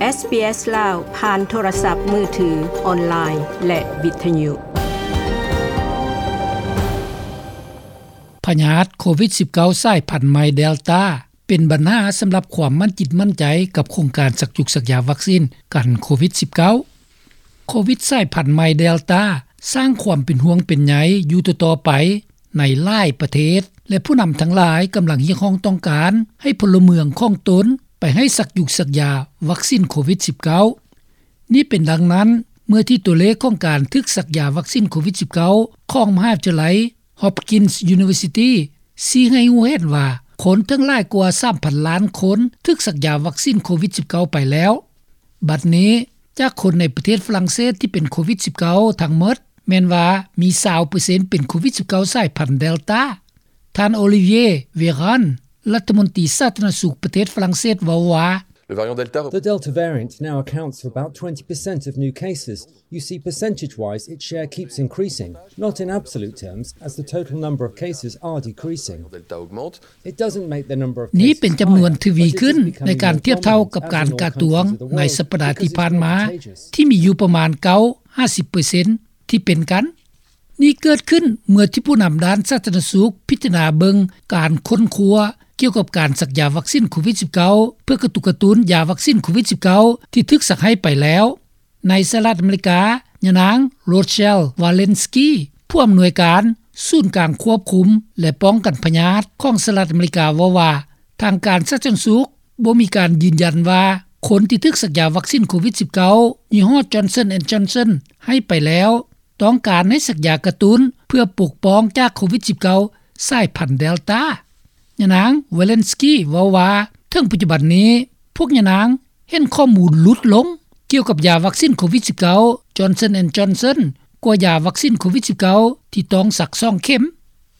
ເອສບີເອສ ລາວ ຜ່ານໂທລະສັບມືຖື, ອອນລາຍ ແລະ ວິທະຍຸ. ພະຍາດໂຄວິດສິບເກົ້າ ສາຍພັນໃໝ່ເດລຕາ ເປັນບັນຫາສຳລັບຄວາມໝັ້ນຈິດໝັ້ນໃຈກັບໂຄງການສັກຢູກສັກຢາວັກຊີນກັນໂຄວິດສິບເກົ້າ. ໂຄວິດສາຍພັນໃໝ່ເດລຕາ ສ້າງຄວາມເປັນຫ່ວງເປັນໃຍຢູ່ຕໍ່ໆໄປໃນຫຼາຍປະເທດ ແລະ ຜູ້ນຳທັງຫຼາຍກຳລັງຮຽກຮ້ອງຕ້ອງການໃຫ້ພົນລະເມືອງຂອງຕົນໄປໃຫ້ສັກຢູກສັກຢາວັກຊີນໂຄວິດສິບເກົ້າ. ນີ້ເປັນດັ່ງນັ້ນ ເມື່ອທີ່ຕົວເລກຂອງການຖືກສັກຢາວັກຊີນໂຄວິດສິບເກົ້າ ຂອງມະຫາວິທະຍາໄລ Hopkins University ຊີ້ໃຫ້ຮູ້ເຫັນວ່າ ຄົນເຖິງຫຼາຍກວ່າສາມພັນລ້ານຄົນຖືກສັກຢາວັກຊີນໂຄວິດສິບເກົ້າໄປແລ້ວ. ບັດນີ້ ຈາກຄົນໃນປະເທດຝຣັ່ງເສດທີ່ເປັນໂຄວິດສິບເກົ້າທັງໝົດ ແມ່ນວ່າມີຊາວເປີເຊັນເປັນໂຄວິດສິບເກົ້າສາຍພັນເດລຕາ. ທ່ານ ໂອລິວຽ ເວຣານ ລັດຖະມົນຕີສາທາລະນະສຸກປະເທດຝຣັ່ງເສດເວົ້າວ່າ Le variant Delta The Delta variant now accounts for about twenty percent of new cases. You see, percentage-wise, its share keeps increasing, not in absolute terms, as the total number of cases are decreasing. Delta augmente. It doesn't make the number of cases higher, but it is becoming more common as in all countries of the world because it's more contagious. ນີ້ເປັນຈຳນວນທະວີຂຶ້ນໃນການທຽບເທົ່າກັບການກະຕວງໃນສັບປະດາທີ່ຜ່ານມາ ທີ່ມີຢູ່ປະມານເກົ້າ ຫ້າສິບເປີເຊັນ ທີ່ເປັນກັນ. ນີ້ເກີດຂຶ້ນເມື່ອທີ່ຜູ້ນຳດ້ານສາທາລະນະສຸກພິຈາລະນາເບິ່ງການຄົ້ນຄວ້າກ່ຽວກັບການສັກຢາວັກຊີນໂຄວິດສິບເກົ້າ ເພື່ອກະຕຸກກະຕຸ້ນຢາວັກຊີນໂຄວິດສິບເກົ້າ ທີ່ຖືກສັກໃຫ້ໄປແລ້ວ. ໃນສະຫະລັດອາເມລິກາ, ຍານາງ ໂຣເຊລ ວາເລນສກີ ຜູ້ອຳນວຍການສູນກາງຄວບຄຸມ ແລະ ປ້ອງກັນພະຍາດຂອງສະຫະລັດອາເມລິກາ ເວົ້າວ່າ ທາງການສາທາລະນະສຸກບໍ່ມີການຢືນຢັນວ່າ ຄົນທີ່ຖືກສັກຢາວັກຊີນໂຄວິດສິບເກົ້າ ຍີ່ຫໍ້ Johnson and Johnson ໃຫ້ໄປແລ້ວ ຕ້ອງການໃຫ້ສັກຢາກະຕຸ້ນເພື່ອປົກປ້ອງຈາກໂຄວິດສິບເກົ້າສາຍພັນເດລຕາ. ຍານາງ ວາເລນສກີ ເວົ້າວ່າ ເຖິງປັດຈຸບັນນີ້ ພວກຍານາງເຫັນຂໍ້ມູນຫຼຸດລົງກ່ຽວກັບຢາວັກຊີນໂຄວິດສິບເກົ້າ Johnson and Johnson ກວ່າຢາວັກຊີນໂຄວິດສິບເກົ້າ ທີ່ຕ້ອງສັກສອງເຂັມ.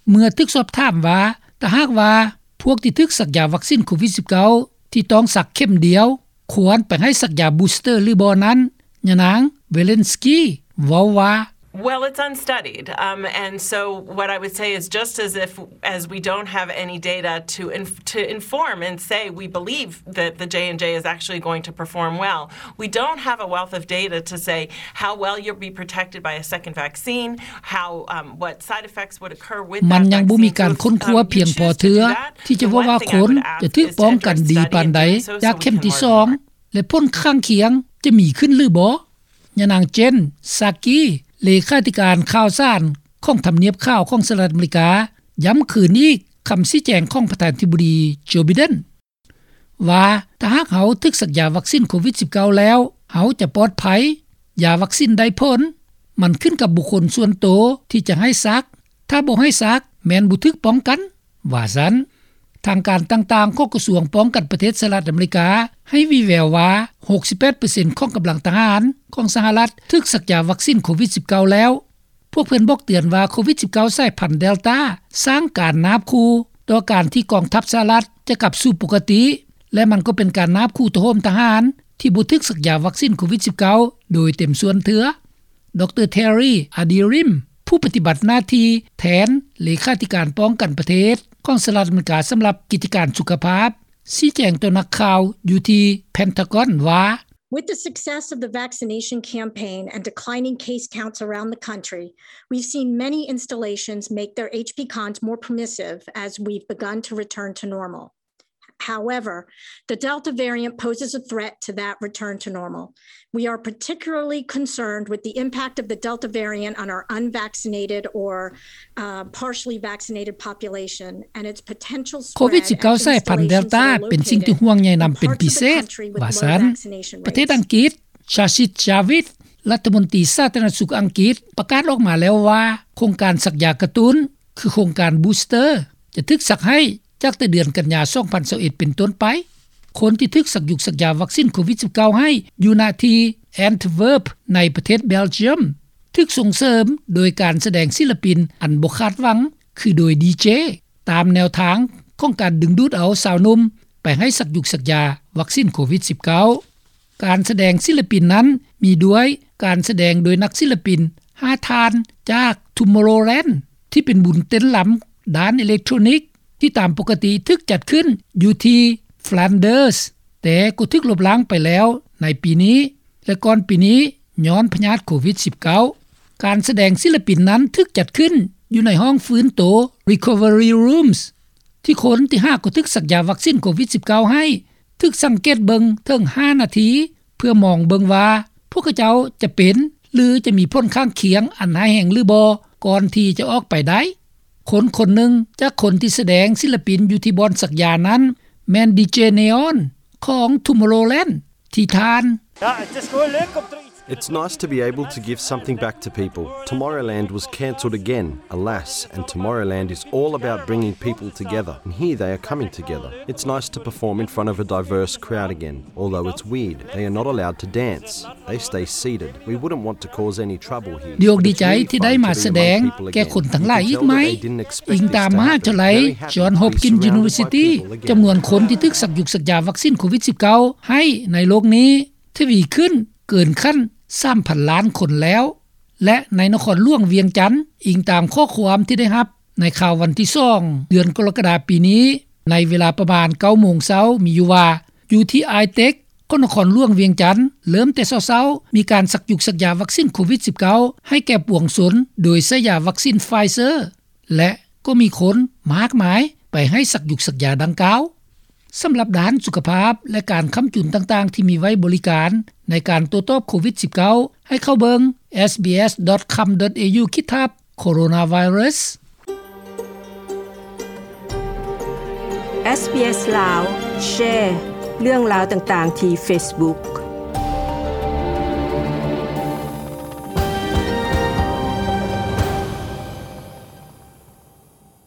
ເມື່ອຖືກສອບຖາມວ່າ ຖ້າຫາກວ່າພວກທີ່ຖືກສັກຢາວັກຊີນໂຄວິດສິບເກົ້າ ທີ່ຕ້ອງສັກເຂັມດຽວ ຄວນໄປໃຫ້ສັກຢາບູສເຕີຫຼືບໍ່ນັ້ນ, ຍານາງ ວາເລນສກີ ເວົ້າວ່າ Well, it's unstudied. Um, and so what I would say is just as if, as we don't have any data to inf-, to inform and say we believe that the J and J is actually going to perform well, we don't have a wealth of data to say how well you'll be protected by a second vaccine, how, um, what side effects would occur with that vaccine. ມັນຍັງບໍ່ມີການຄົ້ນຄວ້າພຽງພໍເທື່ອ ທີ່ຈະເວົ້າວ່າຄົນຈະຖືກປ້ອງກັນດີປານໃດຈາກເຂັມທີສອງ ແລະ ຜົນຂ້າງຄຽງຈະມີຂຶ້ນຫຼືບໍ່. ຍານາງ ເຈນ ຊາກີ ເລຂາທິການຂ່າວສານຂອງທຳນຽບຂາວຂອງສະຫະລັດອາເມລິກາ ຢ້ຳຄືນອີກຄຳຊີ້ແຈງຂອງປະທານາທິບໍດີ ໂຈ ໄບເດັນ ວ່າ ຖ້າຫາກເຮົາຖືກສັກຢາວັກຊີນໂຄວິດສິບເກົ້າແລ້ວ ເຮົາຈະປອດໄພ, ຢາວັກຊີນໄດ້ຜົນ, ມັນຂຶ້ນກັບບຸກຄົນສ່ວນໂຕທີ່ຈະໃຫ້ສັກ, ຖ້າບໍ່ໃຫ້ສັກ ແມ່ນບໍ່ຖືກປ້ອງກັນ. ວ່າຊັ້ນ. ທາງການຕ່າງໆຂອງກະຊວງປ້ອງກັນປະເທດສະຫະລັດອາເມລິກາ ໃຫ້ວີ່ແວວວ່າ ຫົກສິບແປດເປີເຊັນຂອງກຳລັງທະຫານຂອງສະຫະລັດຖືກສັກຢາວັກຊີນໂຄວິດສິບເກົ້າແລ້ວ. ພວກເພິ່ນບອກເຕືອນວ່າ ໂຄວິດສິບເກົ້າສາຍພັນເດລຕາ ສ້າງການນາບຂູ່ຕໍ່ການທີ່ກອງທັບສະຫະລັດຈະກັບສູ່ປົກກະຕິ ແລະ ມັນກໍເປັນການນາບຂູ່ໂຕໂຮມທະຫານທີ່ບໍ່ຖືກສັກຢາວັກຊີນໂຄວິດສິບເກົ້າໂດຍເຕັມສ່ວນເທື່ອ. ດຣ ເທຣີ ອາດີຣິມ ຜູ້ປະຕິບັດໜ້າທີ່ແທນເລຂາທິການປ້ອງກັນປະເທດຂອງສະຫະລັດອາເມລິກາສຳລັບກິດຈະການສຸຂະພາບ ຊີ້ແຈງຕໍ່ນັກຂ່າວຢູ່ທີ່ເພັນທາກອນວ່າ With the success of the vaccination campaign and declining case counts around the country, we've seen many installations make their H P cons more permissive as we've begun to return to normal. However, the Delta variant poses a threat to that return to normal. We are particularly concerned with the impact of the Delta variant on our unvaccinated or, uh, partially vaccinated population and its potential spread at installations that are located in parts of the country with low vaccination rates. ໂຄວິດສິບເກົ້າສາຍພັນເດລຕາເປັນສິ່ງທີ່ຫ່ວງໃຍນຳເປັນພິເສດ ວ່າຊັ້ນ. ປະເທດອັງກິດ, ຊາຊິດ ຈາວິດ ລັດຖະມົນຕີສາທາລະນະສຸກອັງກິດ ປະກາດອອກມາແລ້ວວ່າ ໂຄງການສັກຢາກະຕຸ້ນ ຄືໂຄງການບູສເຕີ ຈະຖືກສັກໃຫ້ຈາກແຕ່ເດືອນກັນຍາ ສອງພັນຊາວເອັດ ເປັນຕົ້ນໄປ. ຄົນທີ່ຖືກສັກຢູກສັກຢາວັກຊີນໂຄວິດສິບເກົ້າໃຫ້ຢູ່ນະທີ່ແອນທະເວີບ ໃນປະເທດເບລຈຽມ ຖືກສົ່ງເສີມໂດຍການສະແດງສິລະປິນອັນບໍ່ຄາດຫວັງ ຄືໂດຍດີເຈ ຕາມແນວທາງຂອງການດຶງດູດເອົາຊາວໜຸ່ມໄປໃຫ້ສັກຢູກສັກຢາວັກຊີນໂຄວິດສິບເກົ້າ. ການສະແດງສິລະປິນນັ້ນມີດ້ວຍການສະແດງໂດຍນັກສິລະປິນຫ້າທ່ານຈາກ Tomorrowland ທີ່ເປັນບຸນເຕັ້ນລຳດ້ານເອເລັກໂທຣນິກ ທີ່ຕາມປົກກະຕິຖືກຈັດຂຶ້ນຢູ່ທີ່ Flanders ແຕ່ກໍຖືກລົບລ້າງໄປແລ້ວ ໃນປີນີ້ ແລະ ກ່ອນປີນີ້ ຍ້ອນພະຍາດໂຄວິດ-19. ການສະແດງສິລະປິນນັ້ນຖືກຈັດຂຶ້ນຢູ່ໃນຫ້ອງຟື້ນໂຕ Recovery Rooms ທີ່ຄົນທີ່ຫາກໍຖືກສັກຢາວັກຊິນໂຄວິດ-19 ໃຫ້ ຖືກສັງເກດເບິ່ງເຖິງຫ້ານາທີ ເພື່ອມອງເບິ່ງວ່າພວກເຂົາເຈົ້າຈະເປັນ ຫຼື ຈະມີຜົນຂ້າງຄຽງອັນຮ້າຍແຮງຫຼືບໍ່ ກ່ອນທີ່ຈະອອກໄປໄດ້. ຄົນຄົນໜຶ່ງຈາກຄົນທີ່ສະແດງສິລະປິນຢູ່ທີ່ບ່ອນສັກຢານັ້ນ ແມ່ນດີເຈເນອອນ ຂອງ Tomorrowland ທີ່ທ່ານ It's nice to be able to give something back to people. Tomorrowland was cancelled again, alas, and Tomorrowland is all about bringing people together, and here they are coming together. It's nice to perform in front of a diverse crowd again, although it's weird, they are not allowed to dance. They stay seated. We wouldn't want to cause any trouble here. ດີອົກດີໃຈທີ່ໄດ້ມາສະແດງແກ່ຄົນທັງຫຼາຍອີກໃໝ່. ອີງຕາມມະຫາວິທະຍາໄລ Johns Hopkins University, ຈຳນວນຄົນທີ່ຖືກສັກຢຸກສັກຢາວັກຊິນໂຄວິດ-19 ໃຫ້ໃນໂລກນີ້ ທະວີຂຶ້ນເກີນຂັ້ນສາມພັນລ້ານຄົນແລ້ວ ແລະ ໃນນະຄອນຫຼວງວຽງຈັນ, ອີງຕາມຂໍ້ຄວາມທີ່ໄດ້ຮັບໃນຂ່າວວັນທີສອງ ເດືອນກໍລະກະດາປີນີ້, ໃນເວລາປະມານເກົ້າໂມງເຊົ້າ ມີຢູ່ວ່າ ຢູ່ທີ່ ITEC ຂອງນະຄອນຫຼວງວຽງຈັນ ເລີ່ມແຕ່ເຊົ້າໆ ມີການສັກຢຸກສັກຢາວັກຊິນໂຄວິດ-19 ໃຫ້ແກ່ປວງຊົນ ໂດຍໃຊ້ຢາວັກຊິນ Pfizer ແລະ ກໍມີຄົນມາກມາຍໄປໃຫ້ສັກຢຸກສັກຢາດັ່ງກ່າວ. ສຳລັບດ້ານສຸຂະພາບ ແລະ ການຄ້ຳຈຸນຕ່າງໆທີ່ມີໄວ້ບໍລິການໃນການໂຕ້ຕອບໂຄວິດ-19 ໃຫ້ເຂົ້າເບິ່ງ sbs.com.au/coronavirus. SBS ລາວ Share ເລື່ອງລາວຕ່າງໆທີ່ Facebook.